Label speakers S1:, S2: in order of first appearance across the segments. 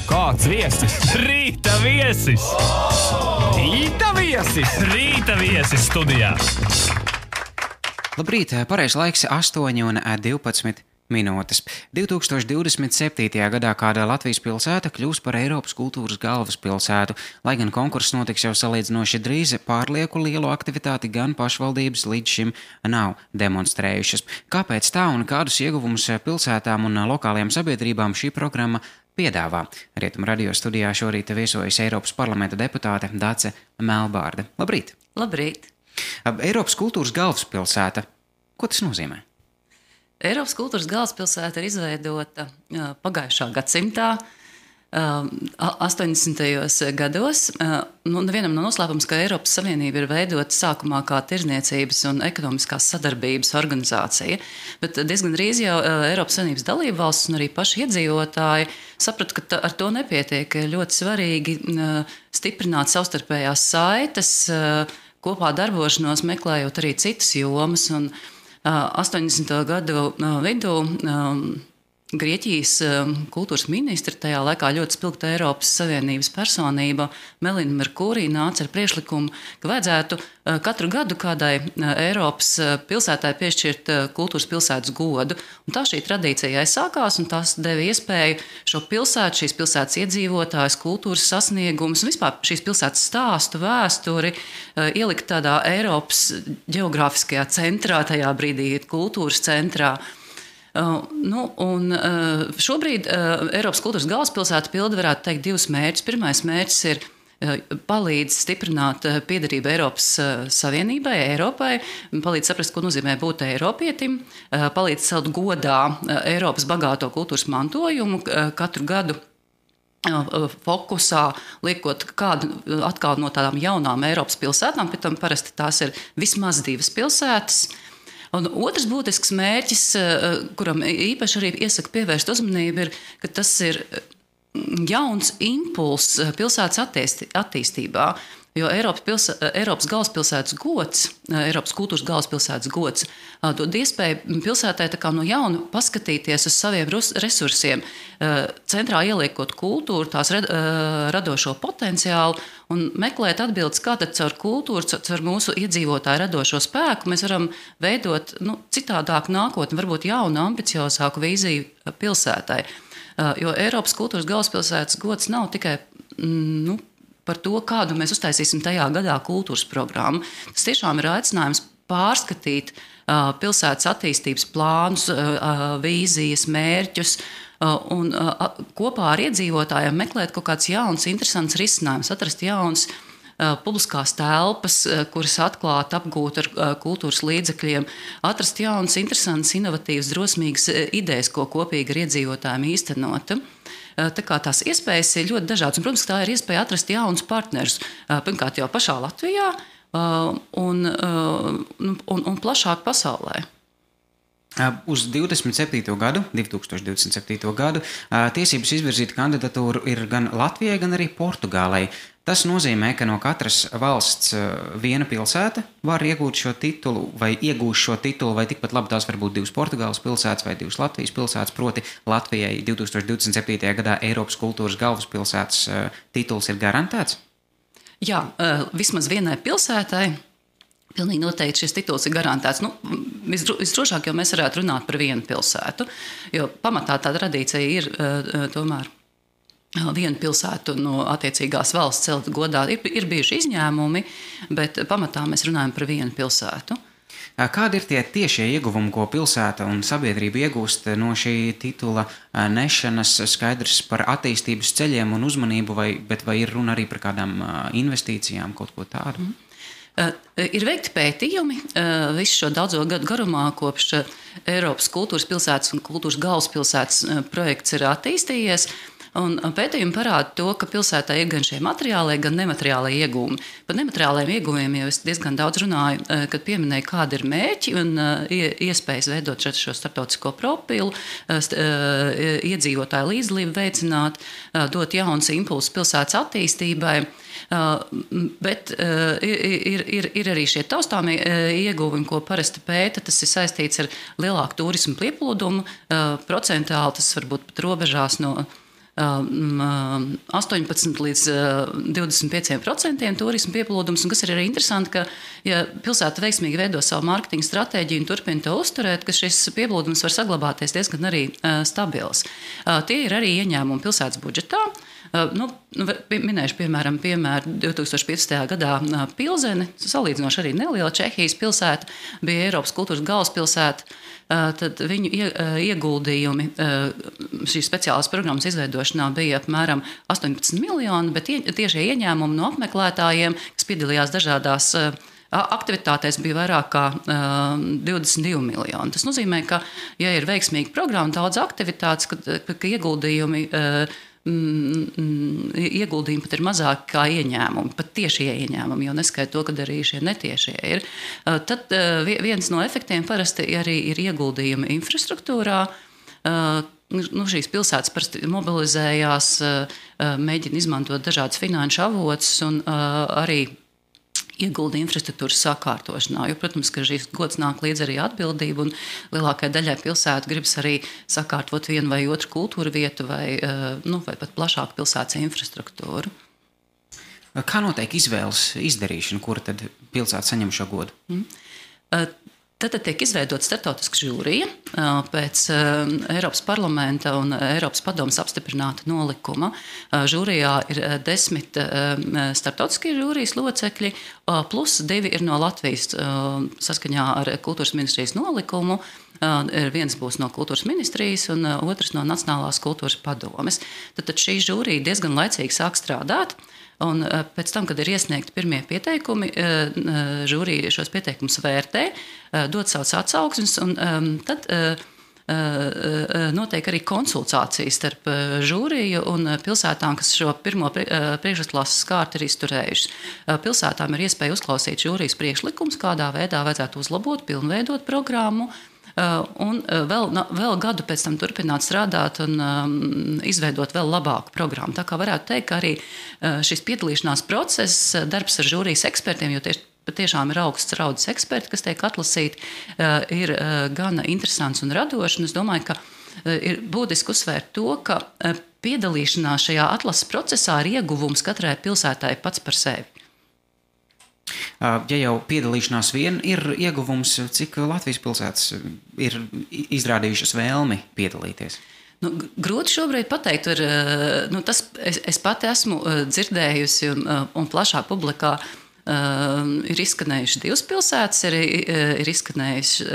S1: Kāds viesis?
S2: Rīta viesis!
S1: Rīta viesis!
S2: Rīta viesis studijā!
S3: Labrīt, pareizs laiks 8:12 minūtes. 2027. gadā kāda Latvijas pilsēta kļūs par Eiropas kultūras galvaspilsētu, lai gan konkurss notiks jau salīdzinoši drīz, pārlieku lielu aktivitāti gan pašvaldības līdz šim nav demonstrējušas. Kāpēc tā un kādus ieguvumus pilsētām un lokālajām sabiedrībām šī programma piedāvā? Rietumu radio studijā šorīt viesojas Eiropas parlamenta deputāte Dace Melbārde. Labrīt!
S4: Labrīt!
S3: Eiropas kultūras galvaspilsēta. Ko tas nozīmē?
S4: Eiropas kultūras galvaspilsēta ir izveidota pagājušā gadsimtā, 80. gados. Nevienam nav noslēpums, ka Eiropas Savienība ir veidota sākumā kā tirdzniecības un ekonomiskās sadarbības organizācija, bet diezgan drīz jau Eiropas Savienības dalībvalstis un arī paši iedzīvotāji saprata, ka ar to nepietiek. Ļoti svarīgi stiprināt savstarpējās saites, kopā darbošanos, meklējot arī citas jomas. Un 80. gadu vidū Grieķijas kultūras ministra, tajā laikā ļoti spilgta Eiropas Savienības personība Melina Merkurī nāca ar priekšlikumu, ka vajadzētu katru gadu kādai Eiropas pilsētai piešķirt kultūras pilsētas godu. Un tā šī tradīcija aizsākās, un tas deva iespēju šo pilsētu, šīs pilsētas iedzīvotājus, kultūras sasniegumus un vispār šīs pilsētas stāstu, vēsturi ielikt tādā Eiropas ģeogrāfiskajā centrā, tajā brīdī kultūras centrā. Šobrīd Eiropas kultūras galvaspilsēta pilda, varētu teikt, divus mērķus. Pirmais mērķis ir palīdz stiprināt piederību Eiropas Savienībai, Eiropai, palīdz saprast, ko nozīmē būt eiropietim, palīdz celt godā Eiropas bagāto kultūras mantojumu katru gadu. Fokusā liekot kādu atkal no tādām jaunām Eiropas pilsētām, pēc tam parasti tās ir vismaz divas pilsētas. Un otrs būtisks mērķis, kuram īpaši arī iesaka pievērst uzmanību, ir, ka tas ir jauns impulss pilsētas attīstībā. Jo Eiropas galvaspilsētas gods, Eiropas kultūras galvaspilsētas gods dod iespēju pilsētai tā kā no jauna paskatīties uz saviem resursiem, centrā ieliekot kultūru, tās radošo potenciālu un meklēt atbildes, kā tad caur kultūru, caur mūsu iedzīvotāju radošo spēku mēs varam veidot citādāku nākotni, varbūt jaunu, ambiciozāku vīziju pilsētai. Jo Eiropas kultūras galvaspilsētas gods nav tikai par to, kādu mēs uztaisīsim tajā gadā kultūras programmu. Tas tiešām ir aicinājums pārskatīt pilsētas attīstības plānus, vīzijas, mērķus un kopā ar iedzīvotājiem meklēt kaut kāds jauns, interesants risinājums, atrast jauns publiskās telpas, kuras atklāt, apgūt ar kultūras līdzekļiem, atrast jaunas, interesantas, inovatīvas, drosmīgas idejas, ko kopīgi ar iedzīvotājiem īstenot. Tā kā tās iespējas ir ļoti dažādas. Un, protams, tā ir iespēja atrast jaunus partnerus. Pirmkārt, jau pašā Latvijā un plašāk pasaulē.
S3: Uz 2027. gadu tiesības izvirzīt kandidatūru ir gan Latvijai, gan arī Portugālei. Tas nozīmē, ka no katras valsts viena pilsēta var iegūt šo titulu vai iegūst šo titulu, vai tikpat labi tās var būt divas Portugāles pilsētas vai divas Latvijas pilsētas, proti Latvijai 2027. gadā Eiropas kultūras galvaspilsētas tituls ir garantēts?
S4: Jā, vismaz vienai pilsētai pilnīgi noteikti šis tituls ir garantēts. Visdrošāk jau mēs varētu runāt par vienu pilsētu, jo pamatā tā tradīcija ir tomēr vienu pilsētu no attiecīgās valsts celt godā. Ir bijuši izņēmumi, bet pamatā mēs runājam par vienu pilsētu.
S3: Kādi ir tie tiešie ieguvumi, ko pilsēta un sabiedrība iegūst no šī titula nešanas? Skaidrs par attīstības ceļiem un uzmanību, bet vai ir runa arī par kādām investīcijām, kaut ko tādu?
S4: Ir veikti pētījumi visu šo daudzo gadu garumā, kopš Eiropas kultūras pilsētas un kultūras galvaspilsētas projekts ir attīstījies. Un pētījumi parāda to, ka pilsētā ir gan šie materiālie, gan nemateriālie iegūmi. Par nemateriālajiem iegūmiem jau es diezgan daudz runāju, kad pieminēju, kādi ir mērķi un iespējas veidot šo starptautisko profilu, iedzīvotāju līdzdalību veicināt, dot jauns impulsus pilsētas attīstībai. Bet ir arī šie taustāmie ieguvumi, ko parasti pēta. Tas ir saistīts ar lielāku turismu pieplūdumu. Procentāli tas var būt pat robežās no 18 līdz 25% turismu pieplūdums. Un kas ir arī interesanti, ka ja pilsēta veiksmīgi veido savu mārketinga stratēģiju un turpina to uzturēt, ka šis pieplūdums var saglabāties diezgan arī stabils. Tie ir arī ieņēmumi pilsētas budžetā. Minēšu piemēru 2015. gadā Pilzeni, salīdzinoši arī neliela Čehijas pilsēta, bija Eiropas kultūras galvaspilsēta. Tad viņu ieguldījumi šīs speciālās programmas izveidošanā bija apmēram 18 miljoni, bet tiešie ieņēmumi no apmeklētājiem, kas piedalījās dažādās aktivitātēs, bija vairāk kā 22 miljoni. Tas nozīmē, ka, ja ir veiksmīga programma, daudz aktivitātes, ka ieguldījumi pat ir mazāk kā ieņēmumi, pat tiešie ieņēmumi, jo neskaidro to, ka arī šie netiešie ir. Tad viens no efektiem parasti arī ir ieguldījumi infrastruktūrā. Šīs pilsētas parasti mobilizējās, mēģina izmantot dažādas finanšu avotus un arī iegulda infrastruktūras sakārtošanā. Jo, protams, ka šīs gods nāk līdz arī atbildība, un lielākajai daļai pilsētu gribas arī sakārtot vienu vai otru kultūra vietu vai pat plašāku pilsētas infrastruktūru.
S3: Kā notiek izvēles izdarīšana, kura tad pilsēta saņem šo godu?
S4: Tad tiek izveidota starptautiska žūrija pēc Eiropas parlamenta un Eiropas padomes apstiprināta nolikuma. Žūrijā ir 10 starptautiskie žūrijas locekļi, plus 2 ir no Latvijas saskaņā ar kultūras ministrijas nolikumu. Viens būs no kultūras ministrijas un otrs no Nacionālās kultūras padomes. Tad šī žūrija diezgan laicīgi sāk strādāt. Un pēc tam, kad ir iesniegti pirmie pieteikumi, žūrija šos pieteikumus vērtē, dod savus atsauksmes, un tad notiek arī konsultācijas starp žūriju un pilsētām, kas šo pirmo priekšklases kārtu ir izturējušas. Pilsētām ir iespēja uzklausīt žūrijas priekšlikumus, kādā veidā vajadzētu uzlabot, pilnveidot programmu, un vēl gadu pēc tam turpināt strādāt un izveidot vēl labāku programmu. Tā kā varētu teikt, ka arī šis piedalīšanās process, darbs ar žūrijas ekspertiem, jo patiešām ir augsts raudas eksperti, kas tiek atlasīti, ir gana interesants un radošs. Es domāju, ka ir būtiski uzsvērt to, ka piedalīšanās šajā atlases procesā ir ieguvums katrai pilsētai pats par sevi.
S3: Ja jau piedalīšanās vien ir ieguvums, cik Latvijas pilsētas ir izrādījušas vēlmi piedalīties?
S4: Grūti šobrīd pateikt. Es pati esmu dzirdējusi un plašā publikā ir izskanējuši 2 pilsētas, ir izskanējuši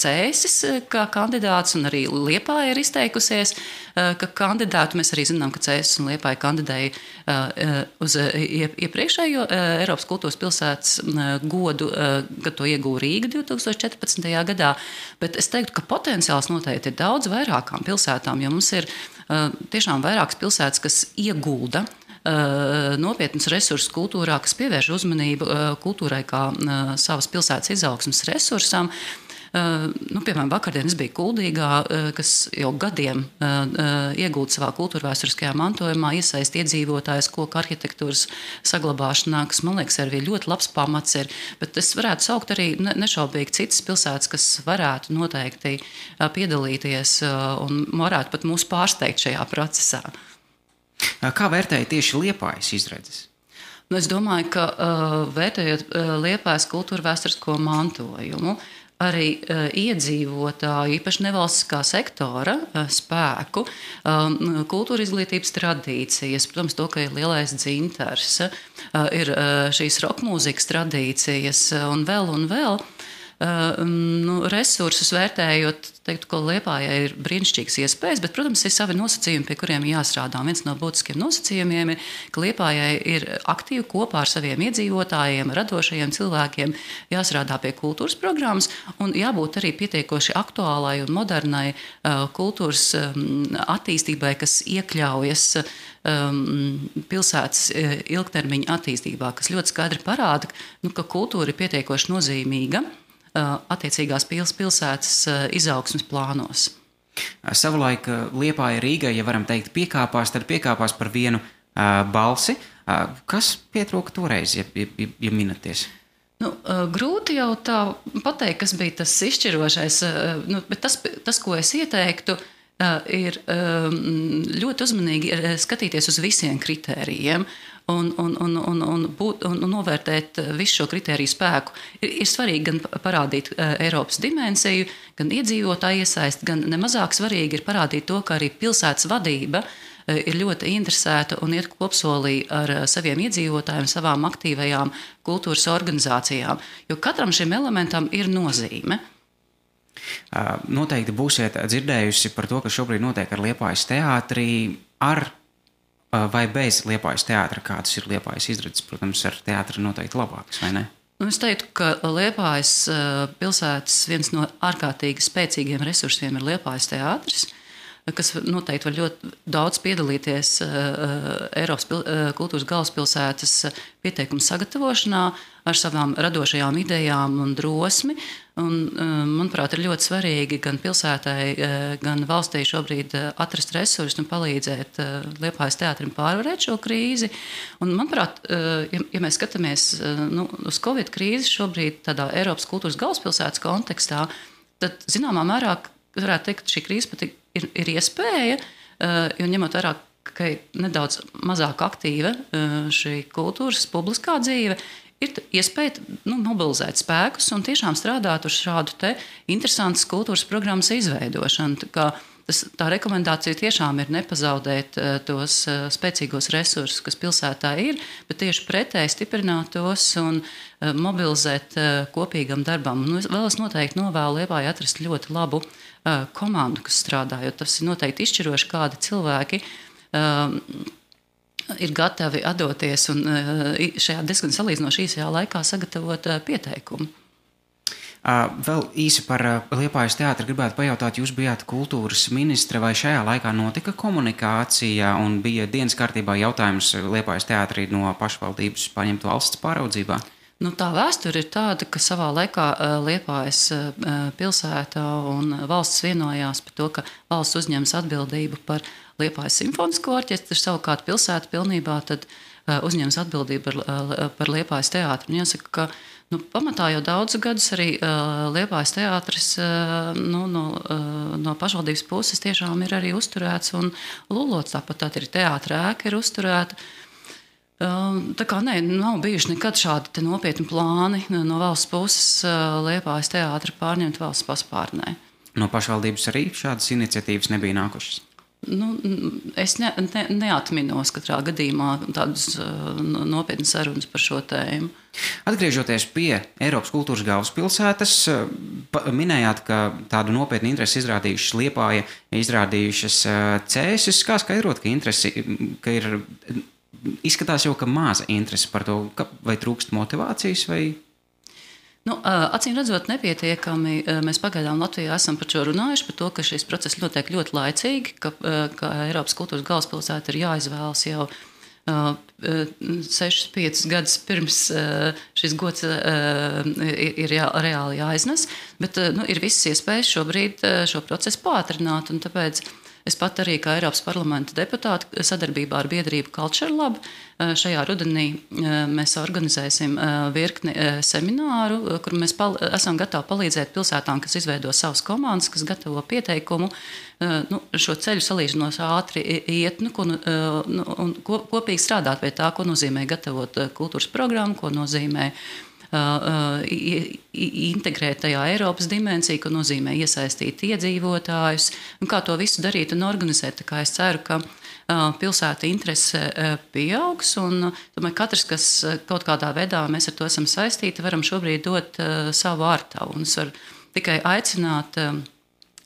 S4: Cēsis kā kandidāts, un arī Liepāja ir izteikusies, ka kandidātu. Mēs arī zinām, ka Cēsis un Liepāja kandidēja uz iepriekšējo Eiropas kultūras pilsētas godu, kad to ieguva Rīga 2014. gadā. Bet es teiktu, ka potenciāls noteikti ir daudz vairākām pilsētām, jo mums ir tiešām vairākas pilsētas, kas iegulda nopietnus resursus kultūrā, kas pievērš uzmanību kultūrai kā savas pilsētas izaugsmes resursam. Piemēram, vakardien es biju Kuldīgā, kas jau gadiem iegūda savā kultūrvēsturiskajā mantojumā, iesaist iedzīvotājus koku arhitektūras saglabāšanā, kas, man liekas, arī ļoti labs pamats ir. Bet es varētu saukt arī nešaubīgi citas pilsētas, kas varētu noteikti piedalīties un varētu pat mūs pārsteigt šajā procesā.
S3: Kā vērtēja tieši Liepājas izredzes?
S4: Es domāju, ka vērtējot Liepājas kultūrvēsturisko mantojumu, arī iedzīvotāju, īpaši nevalstiskā sektora spēku, kultūra izglītības tradīcijas, protams, to, ka ir lielais dzintars, ir šīs rokmūzikas tradīcijas un vēl. Resursus vērtējot, teiktu, ka Liepājai ir brīnišķīgas iespējas, bet, protams, ir savi nosacījumi, pie kuriem jāstrādā. Viens no būtiskiem nosacījumiem ir, ka Liepājai ir aktīvi kopā ar saviem iedzīvotājiem, radošajiem cilvēkiem jāstrādā pie kultūras programmas un jābūt arī pietiekoši aktuālai un modernai kultūras attīstībai, kas iekļaujas pilsētas ilgtermiņa attīstībā, kas ļoti skaidri parāda, ka kultūra ir pietiekoši nozīmīga attiecīgās pilsētas izaugsmes plānos.
S3: Savulaik Liepāja Rīgai, ja varam teikt, piekāpās par vienu balsi. Kas pietrūka toreiz, ja minaties?
S4: Grūti jau tā pateikt, kas bija tas izšķirošais, bet tas, ko es ieteiktu, ir ļoti uzmanīgi skatīties uz visiem kritērijiem un novērtēt visu šo kritēriju spēku. Ir svarīgi gan parādīt Eiropas dimensiju, gan iedzīvotāju iesaist, gan nemazāk svarīgi ir parādīt to, ka arī pilsētas vadība ir ļoti interesēta un iet kopsolī ar saviem iedzīvotājiem, savām aktīvajām kultūras organizācijām, jo katram šim elementam ir nozīme.
S3: Noteikti būsiet dzirdējusi par to, kas šobrīd notiek ar Liepājas teātrī, ar vai bez Liepājas teātra, kādas ir Liepājas izredzes, protams, ar teātri noteikti labākas, vai ne?
S4: Es teiktu, ka Liepājas pilsētas viens no ārkārtīgi spēcīgiem resursiem ir Liepājas teātris, kas noteikti var ļoti daudz piedalīties Eiropas kultūras galvaspilsētas pieteikumu sagatavošanā ar savām radošajām idejām un drosmi. Un, manuprāt, ir ļoti svarīgi gan pilsētai, gan valstī šobrīd atrast resursus un palīdzēt Liepājas teātrim pārvarēt šo krīzi. Un, manuprāt, ja mēs skatāmies uz Covid krīzi šobrīd tādā Eiropas kultūras galvaspilsētas kontekstā, tad zināmā mērā varētu teikt, ka šī krīze pat ir iespēja, jo ņemot vērā, ka ir nedaudz mazāk aktīva šī kultūras publiskā dzīve, ir iespēja mobilizēt spēkus un tiešām strādāt uz šādu te interesantas kultūras programmas izveidošanu. Tā rekomendācija tiešām ir nepazaudēt tos spēcīgos resursus, kas pilsētā ir, bet tieši pretēji stiprināt tos un mobilizēt kopīgam darbam. Vēl es noteikti novēlu Liepājai atrast ļoti labu komandu, kas strādā, jo tas ir noteikti izšķiroši, kādi cilvēki ir gatavi atdoties un šajā diezgan salīdzinoši īsajā laikā sagatavot pieteikumu.
S3: Vēl īsi par Liepājas teātri gribētu pajautāt, jūs bijāt kultūras ministre, vai šajā laikā notika komunikācija un bija dienas kārtībā jautājums Liepājas teātrī no pašvaldības paņemt valsts pāraudzībā?
S4: Tā vēsture ir tāda, ka savā laikā Liepājas pilsēta un valsts vienojās par to, ka valsts uzņems atbildību par Liepājas simfonisko orķestru, savukārt pilsēta pilnībā tad uzņems atbildību par Liepājas teātru. Un jāsaka, ka pamatā jau daudzus gadus arī Liepājas teātris no pašvaldības puses tiešām ir arī uzturēts un lulots. Tāpat arī teātra ēka ir uzturēta. Tā kā nav bijuši nekad šādi nopietni plāni no valsts puses Liepājas teātri pārņemt valsts paspārnē.
S3: No pašvaldības arī šādas iniciatīvas nebija nākušas?
S4: Es neatminos katrā gadījumā tādas nopietnas sarunas par šo tēmu.
S3: Atgriežoties pie Eiropas kultūras galvaspilsētas, minējāt, ka tādu nopietnu interesi izrādījušas Liepāja, izrādījušas Cēsis. Kā skaidrot, ka ir izskatās jau, ka maza interese par to, vai trūkst motivācijas, vai...
S4: Acīm redzot, nepietiekami. Mēs pagaidām Latvijā esam par šo runājuši, par to, ka šis process notiek ļoti laicīgi, ka Eiropas kultūras galvaspilsēta ir jāizvēlas jau 6-5 gadus pirms šis gods ir reāli jāiznes, bet ir visas iespējas šobrīd šo procesu pātrināt, un tāpēc es pat arī kā Eiropas parlamenta deputāte sadarbībā ar biedrību Culture Lab šajā rudenī mēs organizēsim virkni semināru, kur mēs esam gatavi palīdzēt pilsētām, kas izveido savas komandas, kas gatavo pieteikumu, šo ceļu salīdzinoši ātri iet un kopīgi strādāt pie tā, ko nozīmē gatavot kultūras programmu, ko nozīmē integrēt tajā Eiropas dimensiju, ko nozīmē iesaistīt iedzīvotājus, un kā to visu darīt un organizēt. Tā kā es ceru, ka pilsēta interese pieaugs, un domāju, katrs, kas kaut kādā veidā mēs ar to esam saistīti, varam šobrīd dot savu ārtavu. Un es varu tikai aicināt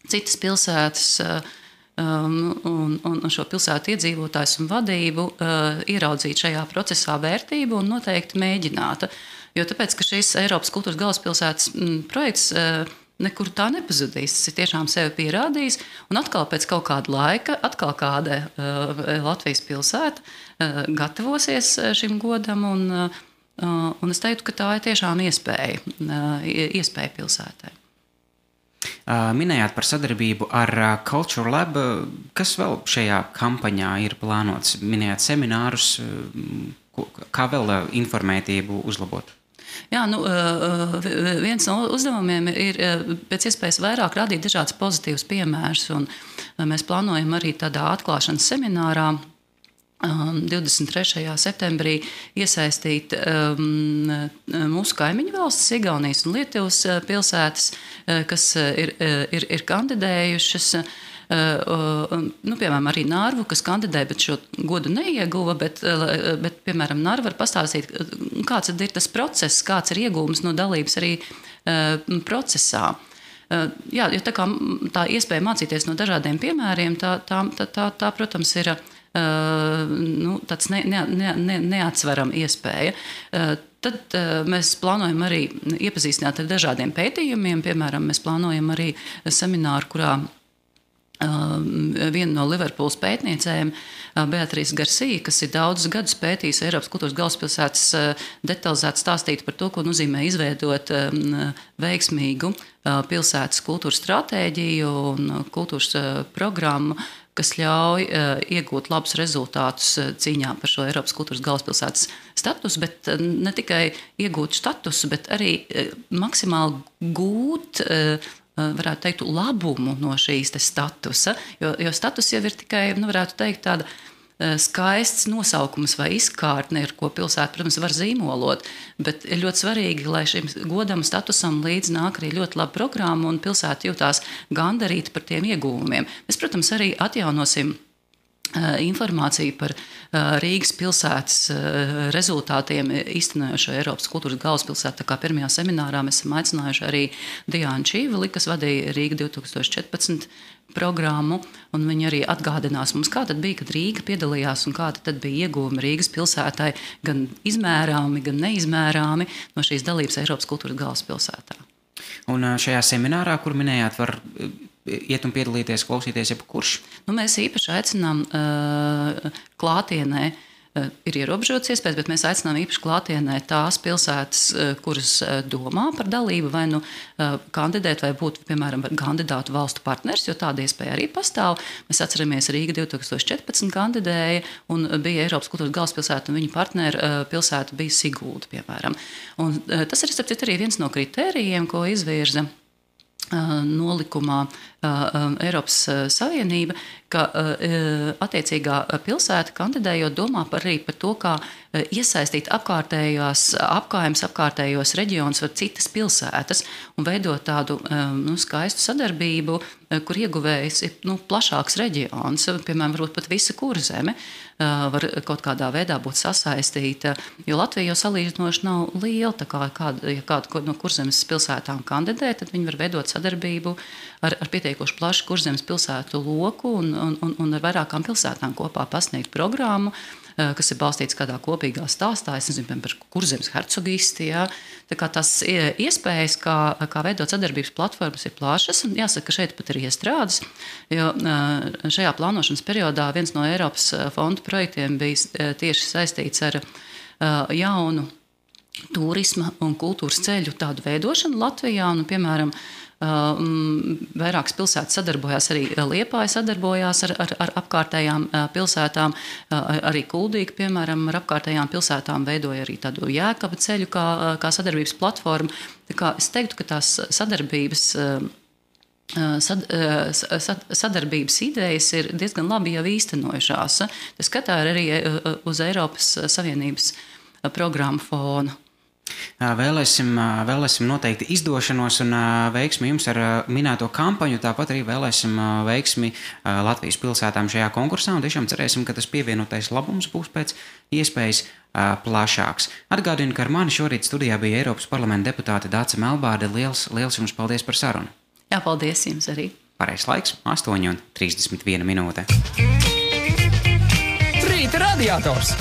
S4: citas pilsētas un šo pilsētu iedzīvotājus un vadību ieraudzīt šajā procesā vērtību un noteikti mēģināt. Jo tāpēc, ka šis Eiropas kultūras galvaspilsētas projekts nekur tā nepazudīs. Tas ir tiešām sevi pierādījis. Un atkal pēc kaut kāda laika, atkal kāda Latvijas pilsēta gatavosies šim godam. Un es teiktu, ka tā ir tiešām iespēja pilsētai.
S3: Minējāt par sadarbību ar Culture Lab. Kas vēl šajā kampaņā ir plānots? Minējāt seminārus. Kā vēl informētību uzlabot?
S4: Jā, viens no uzdevumiem ir pēc iespējas vairāk radīt dažādas pozitīvas piemērus. Mēs plānojam arī tādā atklāšanas seminārā 23. septembrī iesaistīt mūsu kaimiņu valstis, Igaunijas un Lietuvas pilsētas, kas ir kandidējušas. Piemēram, arī Narvu, kas kandidēja, bet šo godu neieguva, bet piemēram, Narva var pastāstīt, kāds ir tas process, kāds ir iegūms no dalības arī procesā. Jā, jo tā iespēja mācīties no dažādiem piemēriem, tā protams, ir tāds neatsverama iespēja. Tad mēs plānojam arī iepazīstināt ar dažādiem pētījumiem. Piemēram, mēs plānojam arī semināru, kurā viena no Liverpūles pētniecēm, Beatrice Garcia, kas ir daudzus gadus pētījusi Eiropas kultūras galvaspilsētas, detalizēti stāstīt par to, ko nozīmē izveidot veiksmīgu pilsētas kultūras stratēģiju un kultūras programmu, kas ļauj iegūt labus rezultātus cīņā par šo Eiropas kultūras galvaspilsētas statusu, bet ne tikai iegūt statusu, bet arī maksimāli gūt, varētu teikt, labumu no šīs statusa, jo status jau ir tikai, varētu teikt, tāda skaists nosaukums vai izkārtne, ar ko pilsēta, protams, var zīmolot, bet ir ļoti svarīgi, lai šim godam statusam līdz nāk arī ļoti laba programma un pilsēta jūtās gandarīta par tiem ieguvumiem. Mēs, protams, arī atjaunosim informāciju par Rīgas pilsētas rezultātiem īstenojošo Eiropas kultūras galvaspilsētu. Tā kā pirmajā seminārā mēs esam aicinājuši arī Diānu Čīvili, kas vadīja Rīga 2014 programmu, un viņi arī atgādinās mums, kā tad bija, kad Rīga piedalījās un kāda tad bija ieguvumi Rīgas pilsētai, gan izmērāmi, gan neizmērāmi no šīs dalības Eiropas kultūras galvaspilsētā.
S3: Un šajā seminārā, kur minējāt, var iet un piedalīties, klausīties jebkurš?
S4: Mēs īpaši aicinām klātienē, ir ierobežotas iespējas, bet mēs aicinām īpaši klātienē tās pilsētas, kuras domā par dalību, vai kandidēt, vai būt, piemēram, kandidātu valstu partners, jo tāda iespēja arī pastāv. Mēs atceramies, Rīga 2014 kandidēja un bija Eiropas kultūras galvaspilsēta, un viņa partneru pilsēta bija Sigulda, piemēram. Un tas ir, starp citu, arī viens no kritērijiem, ko izvirza nolikumā Eiropas Savienība, ka attiecīgā pilsēta kandidējot domā arī par to, kā iesaistīt apkārtējos reģionus vai citas pilsētas un veidot tādu skaistu sadarbību, kur ieguvējs ir plašāks reģions, piemēram, varbūt pat visa Kurzeme var kaut kādā veidā būt sasaistīta, jo Latvija jau salīdzinoši nav liela, tā kā ja kāda no Kurzemes pilsētām kandidē, tad viņi var veidot sadarbību ar pietiekoši plašu Kurzemes pilsētu loku un ar vairākām pilsētām kopā pasniegt programmu, kas ir balstīts kādā kopīgā stāstā, es nezinu, par Kurzemes hercogisti, jā. Tā kā tās iespējas, kā veidot sadarbības platformas, ir plašas, un jāsaka, ka šeit pat ir iestrādes, jo šajā plānošanas periodā viens no Eiropas fondu projektiem bija tieši saistīts ar jaunu turisma un kultūras ceļu tādu veidošanu Latvijā, un, piemēram, vairākas pilsētas sadarbojās, arī Liepāja sadarbojās ar apkārtējām pilsētām, arī Kuldīga, piemēram, ar apkārtējām pilsētām veidoja arī tādu Jēkaba ceļu kā sadarbības platformu. Tā kā es teiktu, ka tās sadarbības idejas ir diezgan labi jau īstenojušās. Tas skatā arī uz Eiropas Savienības programmu fonu.
S3: Vēlēsim noteikti izdošanos un veiksmi jums ar minēto kampaņu, tāpat arī vēlēsim veiksmi Latvijas pilsētām šajā konkursā un tiešām cerēsim, ka tas pievienotais labums būs pēc iespējas plašāks. Atgādinu, ka ar mani šorīt studijā bija Eiropas parlamenta deputāte Dāce Melbārde. Liels jums paldies par sarunu.
S4: Jā, paldies jums arī.
S3: Pareizs laiks 8:31 minūte.
S1: Rīta radiators!